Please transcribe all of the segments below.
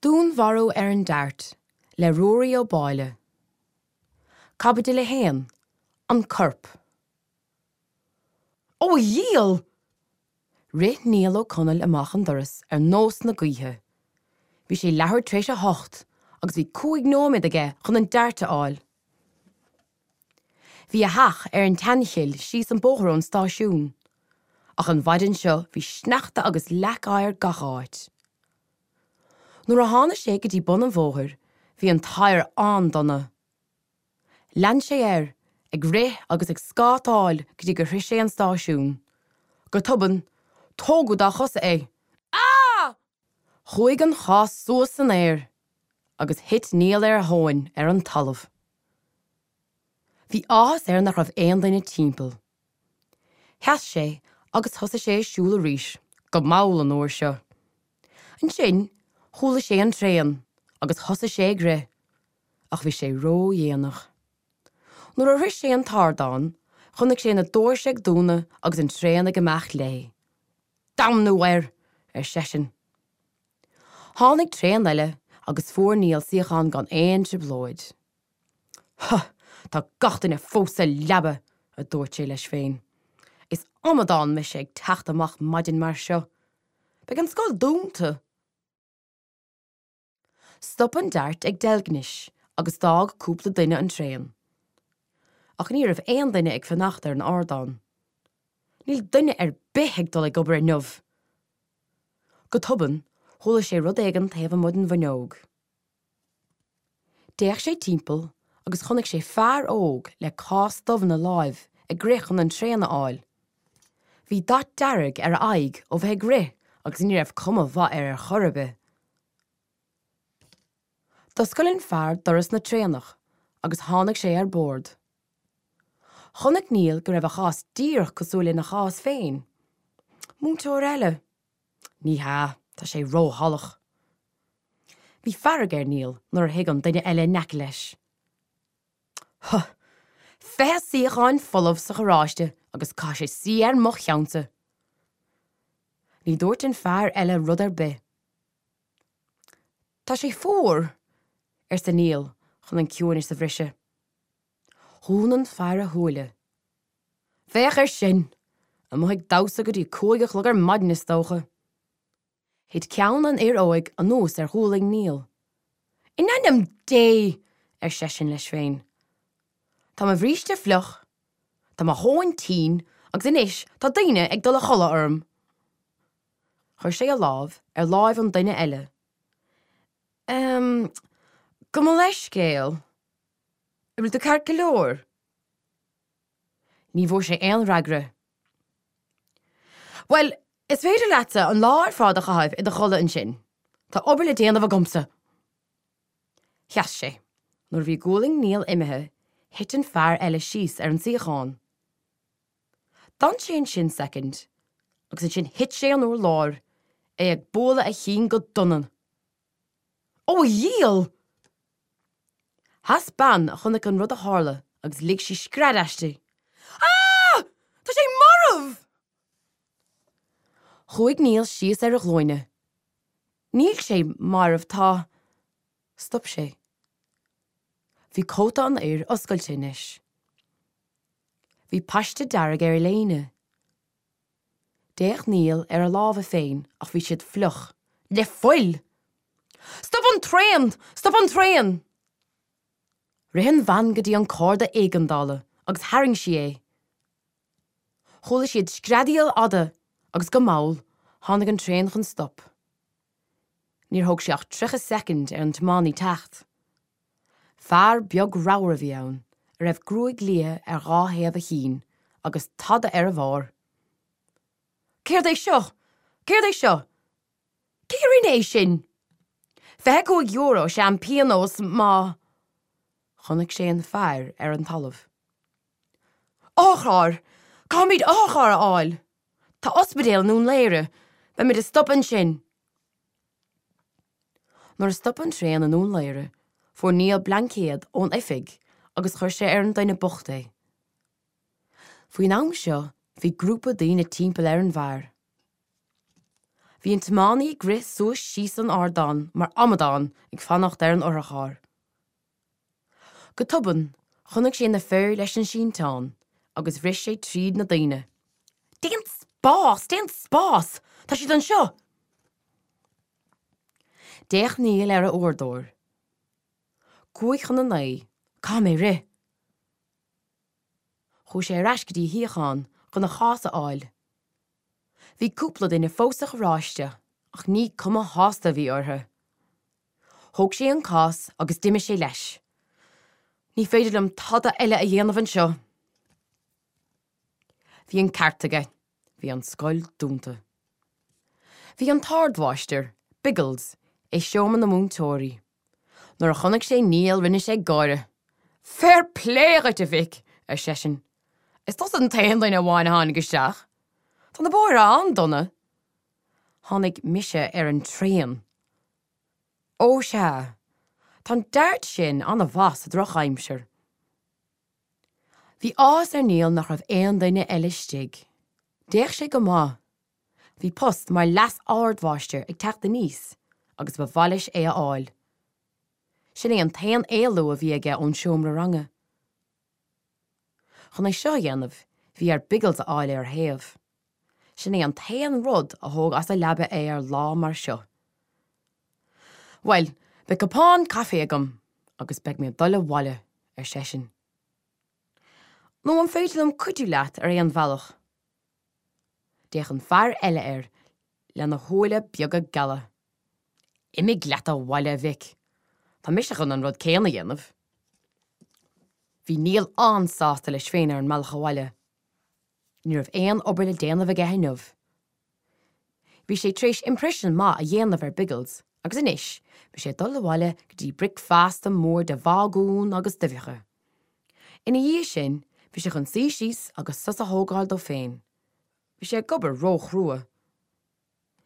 Dúnmharú ar an Dart le Ruairí Ó Báille. Caibidil 1, An Corp. Ó a dhiabhail! Rith Niall Ó Conaill amach an doras ar nós na gaoithe. Bhí sé leathuair tar éis a hocht agus bhí 5 nóiméad aige chun an Dart a fháil. Bhí a theach ar an tSeanchill síos an bóthar ón stáisiún. Ach an mhaidin seo bhí sneachta agus leac oighir gach áit. Nuair a tháinig sé go dtí bun an bhóthair bhí an t-oighear an-dona. Lean sé air, ag rith agus ag scátáil go dtí gur shroich sé an stáisiún. Go tobann, tógadh dá chosa é. Ah! Chuaigh an chás suas san aer agus thit Niall ar a thóin ar an talamh. Bhí áthas air nach raibh aon duine timpeall. Sheas sé agus thosaigh sé ag siúl arís, go mall an uair seo. Ansin chuala sé an traein agus thosaigh sé ag rith, ach bhí sé ródhéanach. Nuair a shroich sé an t-ardán, chonaic sé na doirse ag dúnadh agus an traein ag imeacht léi. Damnú air! ar seisean. Tháinig traein eile agus fuair Niall suíochán gan aon trioblóid. Huh! Tá gach duine fós sa leaba! a dúirt sé leis féin. Is amadán mise ag teacht amach maidin mar seo. Beidh an scoil dúnta! Stop an Dart ag Deilgnis agus d'fhág cúpla duine an traein. Ach ní raibh aon duine ag fanacht ar an ardán. Níl duine ar bith ag dul ag obair inniu! Go tobann, chuala sé rud éigin taobh amuigh den bhfuinneog. D'fhéach sé timpeall agus chonaic sé fear óg le cás dubh ina láimh ag rith chun an traein a fháil. Bhí dath dearg ar a aghaidh ó bheith ag rith agus ní raibh cuma mhaith air ar chor ar bith. D'oscail an fear doras na traenach agus tháinig sé ar bord. Chonaic Niall go raibh a chás díreach cosúil lena chás féin. Múinteoir eile? Ní hea, tá sé róshalach. Bhí fearg ar Niall nuair a shuigh an duine eile in aice leis. Huh! 20 suíocháin folamh sa charráiste agus caithfidh sé suí ar mo cheannsa! Ní dúirt an fear eile rud ar bith. Tá sé fuar! arsa Niall chun an ciúineas a bhriseadh. Dhún an fear a shúile. Féach air sin! Amuigh ag damhsa go dtí 5 a chlog ar maidin is dócha. Thit ceann an fhir óig anuas ar ghualainn Niall. In ainm Dé! ar seisean leis féin. Tá mo bhríste fliuch, tá mo thóin tinn agus anois tá daoine ag dul a chodladh orm. Chuir sé a lámh ar láimh an duine eile. Ehm, gabh mo leithscéal. An bhfuil tú ceart go leor? Ní bhfuair sé aon fhreagra. Bhuel, is féidir leatsa an lá ar fad a chaitheamh i do chodladh ansin. Tá obair le déanamh agamsa! Sheas sé. Nuair a bhí gualainn Niall imithe, thit an fear eile síos ar an suíochán. D'fhan sé ansin soicind agus ansin thit sé an urlár, é ag bualadh a chinn go dona. Ó a dhiabhail! Sheas bean a chonaic an rud a tharla agus lig sí scread aisti. Ah! Tá sé marbh! Chuaigh Niall síos ar a ghlúine. Níl sé marbh, tá. Stop sé. Bhí cóta an fhir oscailte anois. Bhí paiste dearg ar a léine. D'fhéach Niall ar a lámha féin ach bhí siad fliuch le fuil! Stop an traein! Stop an traein! Rith an bhean go dtí an cárda éigeandála agus tharraing sí é. Chuala siad screadaíl fhada agus go mall tháinig an traein chun stop. Níor thóg sé ach 30 soicind ar an tiománaí teacht. Fear beag ramhar a bhí ann, a raibh gruaig liath ar dhá thaobh a chinn agus tada ar a bharr. Céard é seo? Céard é seo? Cé a rinne é sin? €25 is ea an pionós má. Chonaic sé an fear ar an talamh. Otharcharr! Caithfimid otharcharr a fháil! Tá ospidéal i nDún Laoghaire. Beimid ag stopadh ansin. Nuair a stop an traein i nDún Laoghaire, fuair Niall blaincéad ón oifig agus chuir sé ar an duine bocht é. Faoin am seo, bhí grúpa daoine timpeall ar an bhfear. Bhí an tiománaí ag rith suas síos an ardán mar amadán ag fanacht ar an otharcharr. Go tobann, chonaic sé na fir leis an sínteán agus rith sé tríd na daoine. Déan spás! Déan spás! Tá siad anseo! D'fhéach Niall ar a uaireadóir. 8:55, caithfidh mé rith! Chuaigh sé ar ais go dtí a shuíochán chun a chás a fháil. Bhí cúpla duine fós sa charráiste ach ní cuma shásta a bhí orthu. Thóg sé an cás agus d'imigh sé leis. Ní féidir liom tada eile a dhéanamh anseo. Bhí an ceart aige, bhí an scoil dúnta. Bhí an t-ardmháistir, Biggles, i seomra na múinteoirí. Nuair a chonaic sé Niall rinne sé gáire. Fair plé dhuit, a mhic, ar seisean. Is tusa an t-aon duine amháin a tháinig isteach. Tá na bóithre an-dona. Tháinig mise ar an traein. Ó sea, tá an Dart sin an-mhaith sa drochaimsir. Bhí áthas ar Niall nach raibh aon duine eile istigh. D'fhéach sé go maith. Bhí post mar leas-ardmháistir ag teacht aníos agus ba mhaith leis é a fháil. Sin é an t-aon éalú a bhí aige ón seomra ranga. Chun é seo a dhéanamh, bhí air Biggles a fháil ar a thaobh. Sin é an t-aon rud a thóg as a leaba é ar lá mar seo. Bhuel, beidh cupán caife agam agus beidh mé ag dul abhaile, ar seisean. Nó an féidir liom cuidiú leat ar aon bhealach? D'fhéach an fear eile air lena shúile beaga geala. Imigh leat abhaile, a mhic. Tá mise chun an rud céanna a dhéanamh. Bhí Niall an-sásta leis féin ar an mbealach abhaile. Ní raibh aon obair le déanamh aige inniu. Bhí sé tar éis imprisean maith a dhéanamh ar Biggles agus anois bhí sé ag dul abhaile go dtí bricfeasta mór de bhagún agus d'uibheacha. Ina dhiaidh sin bhí sé chun suí síos agus sos a thógáil dó féin. Bhí sé ag obair ró-chrua.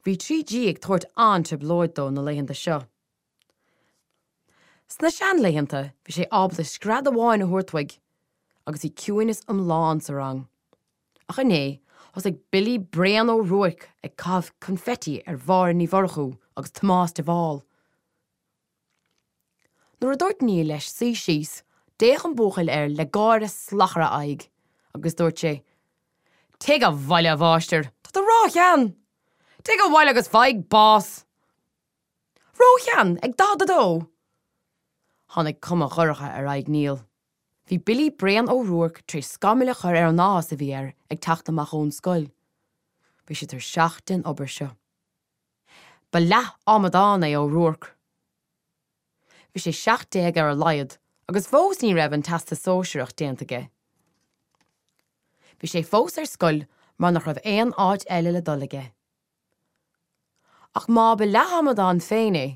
Bhí 3G ag tabhairt an-trioblóid dó na laethanta seo. Sna seanlaethanta bhí sé ábalta scread amháin a thabhairt uaidh agus bhí ciúineas iomlán sa rang. Ach inné thosaigh Billy Bréan Ó Ruairc ag caitheamh confetti ar Mháire Ní Mhurchú agus Tomás de Bhál. Nuair a dúirt Niall leis suí síos, d'fhéach an buachaill air le gáire salach ar a aghaidh agus dúirt sé, Téigh abhaile, a mháistir, tá tú róshean! Téigh abhaile agus faigh bás! Róshean? Ag 42? Tháinig cuma dhorcha ar aghaidh Niall. Bhí Billy Bréan Ó Ruairc tar éis scamaill a chur ar an áthas a bhí air ag teacht amach ón scoil. Bhí sé tuirseach den obair seo. Ba leath-amadán é Ó Ruairc. Bhí sé 17 ar a laghad agus fós ní raibh an Teastas Sóisearach déanta aige. Bhí sé fós ar scoil mar nach raibh aon áit eile le dul aige. Ach má ba leath-amadán féin é,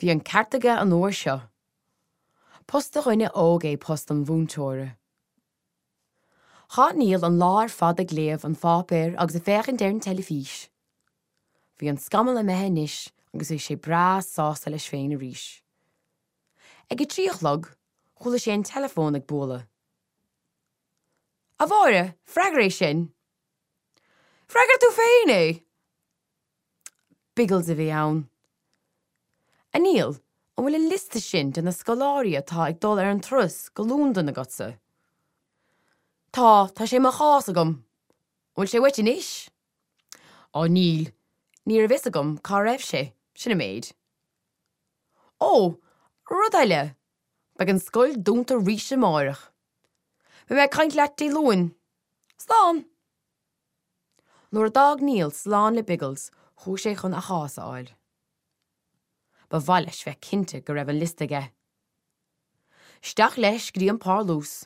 bhí an ceart aige an uair seo. Post do dhuine óg é post an mhúinteora. Chaith Niall an lá ar fad ag léamh an pháipéir agus ag féachaint ar an teilifís. Bhí an scamall imithe anois agus bhí sé breá sásta leis féin arís. Ag a trí a chlog, chuala sé an teileafón ag bualadh. A Mháire, freagair é sin! Freagair tú féin é! Biggles a bhí ann. A Niall, an bhfuil an liosta sin de na scoláirí atá ag dul ar an turas go Londain agatsa? Tá, tá sé i mo chás agam. An bhfuil sé uait anois? Á níl, ní raibh fhios agam cá raibh sé, sin an méid. Ó, rud eile, beidh an scoil dúnta arís amáireach. Beidh mé ag caint leat Dé Luain. Slán! Nuair a d'fhág Niall slán le Biggles chuaigh sé chun a chás a fháil. Ba mhaith leis bheith cinnte go raibh an liosta aige. Isteach leis go dtí an parlús.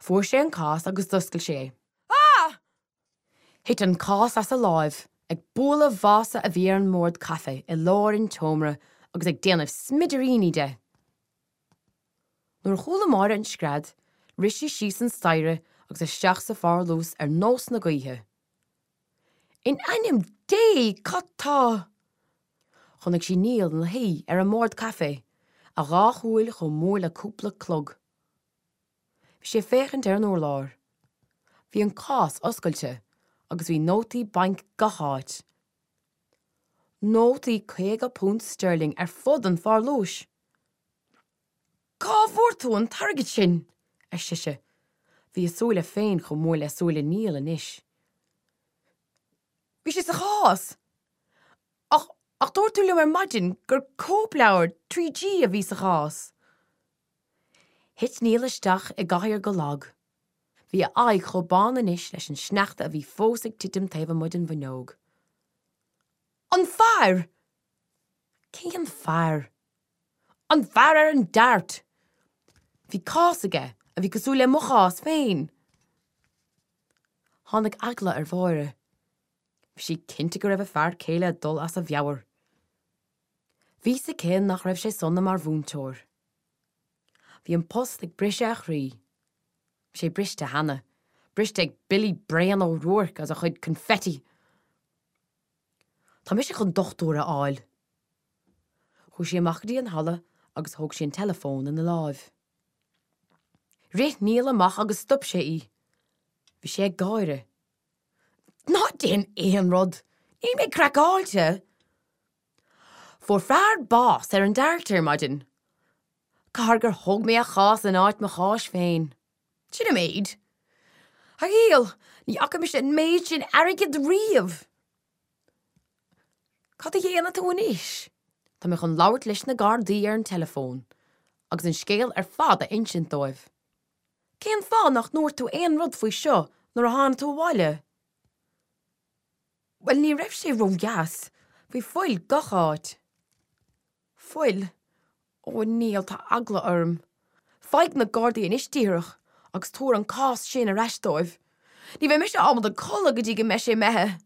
Fuair sé an cás agus d'oscail sé é. Ah! Thit an cás as a láimh, ag bualadh vása a bhí ar an mbord caife i lár an tseomra agus ag déanamh smidiríní de. Nuair a chuala Máire an scread, rith sí síos an staighre agus isteach sa pharlús ar nós na gaoithe. In ainm Dé, cad tá? Chonaic sí Niall ina shuí ar an mbord caife, a dhá shúil chomh mór le cúpla clog. Bhí sé ag féachaint ar an urlár. Bhí an cás oscailte agus bhí nótaí bainc gach áit. Nótaí £50 sterling ar fud an pharlúis. Cá bhfuair tú an t-airgead sin? ar sise. Bhí a súile féin chomh mór le súile Neil anois. Bhí sé sa chás! Ach, ach dúirt tú liom ar maidin gur cóipleabhar 3G a bhí sa chás! Thit Neil isteach i gcathaoir go lag. Bhí a aghaidh chomh bán anois leis an sneachta a bhí fós ag titim taobh amuigh den bhfuinneog. An fear! Cén fear? An fear ar an Dart! Bhí cás aige a bhí cosúil le mo chás féin! Tháinig eagla ar Mháire. Bhí sí cinnte go raibh a fear céile ag dul as a mheabhair. Bhí fhios aici nach raibh sé sona mar mhúinteoir. Bhí an post ag briseadh a chroí. Bhí sé briste cheana, briste ag Billy Bréan Ó Ruairc agus a chuid confetti. Tá mise chun dochtúir a fháil. Chuaigh sí amach go dtí an halla agus thóg sí an teileafón ina láimh. Rith Neil amach agus stop sé í. Bhí sé ag gáire. Ná déan aon rud! Níl mé craiceáilte! Fuair fear bás ar an Dart ar maidin. Caithfidh gur thóg mé a chás in áit mo cháis féin. Sin an méid. A Neil, ní fhaca mise an méid sin airgid riamh! Cad a dhéanfaidh tú anois? Tá mé chun labhairt leis na Gardaí ar an teileafón agus an scéal ar fad a insint dóibh. Cén fáth nach ndúirt tú aon rud faoi seo nuair a tháinig tú abhaile? Bhuel, ní raibh sé ródheas. Bhí fuil gach áit. Fuil? Ó, a Neil, tá eagla orm. Faigh na Gardaí anois díreach agus tabhair an cás sin ar ais dóibh. Ní bheidh mise ábalta codladh go dtí go mbeidh sé imithe.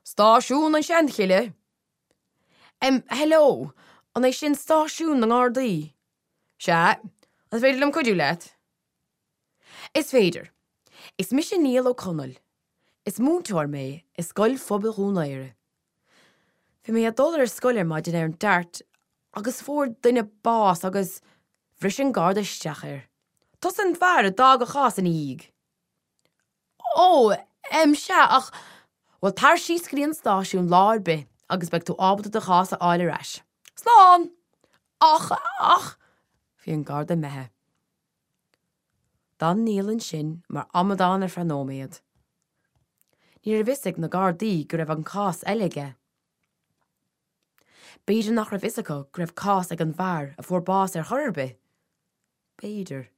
Stáisiún an Seanchille? Em, hello, an é sin stáisiún na nGardaí? Sea, an féidir liom cuidiú leat? Is féidir. Is mise Niall Ó Conaill. Is múinteoir mé i Scoil Phobail Dhún Laoghaire. Bhí mé ag dul ar scoil ar maidin ar an Dart agus fuair duine bás agus bhris an garda isteach air. Tusa an fear a d'fhág a chás ina dhiaidh. Ó, em, sea, ach, bhuel, tar síos go dtí an stáisiún lá ar bith agus beidh tú ábalta do chás a fháil ar ais. Slán! Ach, ach, bhí an garda imithe. D'fhan Niall ansin mar amadán ar feadh nóiméad. Ní raibh fhios ag na gardaí go raibh an cás eile aige. B'fhéidir nach raibh fhios acu go raibh cás ag an bhfear a fuair bás ar chor ar bith. B'fhéidir.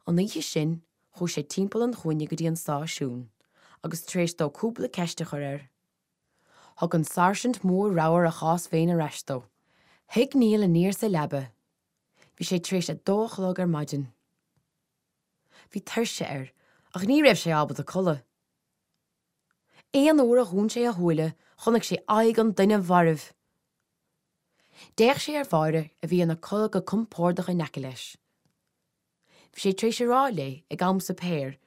An oíche sin, chuaigh sé timpeall an chúinne go dtí an stáisiún, agus tar éis dó cúpla ceist a chur air, thug an sáirsint mór ramhar a chás féin ar ais dó. Shuigh Niall aniar sa leaba. Bhí sé tar éis a dó a chlog ar maidin. Bhí tuirse air, ach ní raibh sé ábalta codladh. Aon uair a dhún sé a shúile, chonaic sé aghaidh an duine mhairbh. D'fhéach sé ar Mháire a bhí ina codladh go compordach in aice leis. Bhí sé tar éis a rá léi ag am suipéir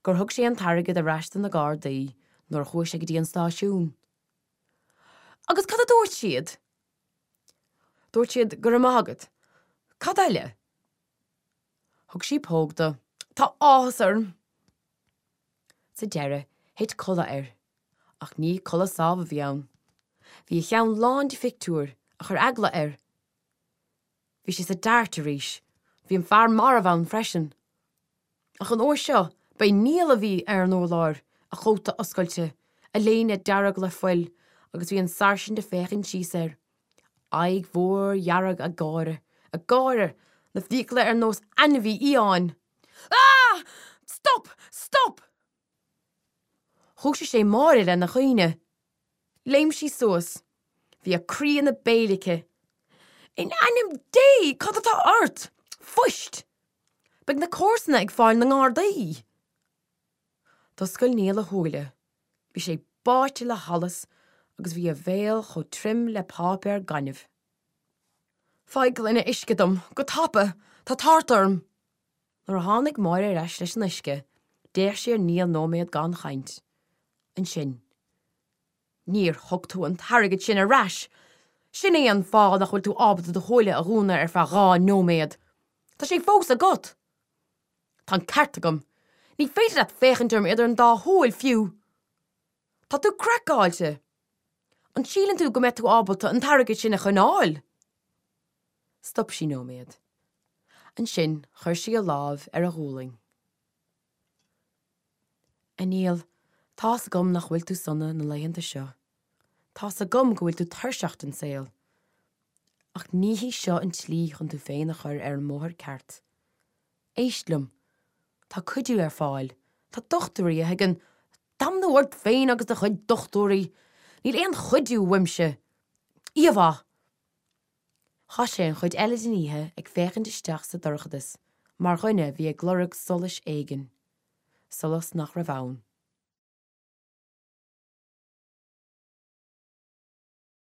gur thug sé an t-airgead ar ais do na Gardaí nuair a chuaigh sé go dtí an stáisiún. Agus cad a dúirt siad? Dúirt siad go raibh maith agat. Cad eile? Thug sí póg dó. Tá áthas orm! Sa deireadh, thit codladh air. Ach ní codladh sámh a bhí ann. Bhí a cheann lán de phictiúir a chuir eagla air. Bhí sé sa Dart arís. Bhí an fear marbh ann freisin. Ach an uair seo, ba é Niall a bhí ar an urlár, a chóta oscailte, a léine dearg le fuil, agus bhí an sáirsint ag féachaint síos air, aghaidh mhór dhearg ag gáire, ag gáire, na fiacla ar nós ainmhí fhiáin. Ah! Stop! Stop! Dhúisigh sé Máire lena chaoineadh. Léim sí suas. Bhí a croí ina béal aici. In ainm Dé, cad atá ort? Fuist! Beidh na comharsana ag fáil na nGardaí! D'oscail Niall a shúile. Bhí sé báite le hallas agus bhí a bhéal chomh tirim le páipéar gainimh. Faigh gloine uisce dom, go tapa! Tá tart orm! Nuair a tháinig Máire ar ais leis an uisce, d'fhéach sí ar Niall nóiméad gan chaint. Ansin, Níor thug tú an t-airgead sin ar ais! Sin é an fáth nach bhfuil tú ábalta do shúile a dhúnadh ar feadh 2 nóiméad! Tá sé fós agat! Tá an ceart agam! Ní féidir leat féachaint orm idir an dá shúil, fiú! Tá tú craiceáilte! An síleann tú go mbeidh tú ábalta an t-airgead sin a choinneáil? Stop sí nóiméad. Ansin chuir sí a lámh ar a ghualainn. A Neil, tá's agam nach bhfuil tú sona na laethanta seo. Tá's agam go bhfuil tú tuirseach den saol. Ach ní hí seo an tslí chun tú féin a chur ar an mbóthar ceart. Éist liom. Tá cuidiú ar fáil. Tá dochtúirí a thuigeann. Damnú ort féin agus do chuid dochtúirí! Níl aon chuidiú uaimse! Oíche mhaith! Chaith sé an chuid eile den oíche ag féachaint isteach sa dorchadas mar dhuine a bhí ag lorg solais éigin, solas nach raibh ann.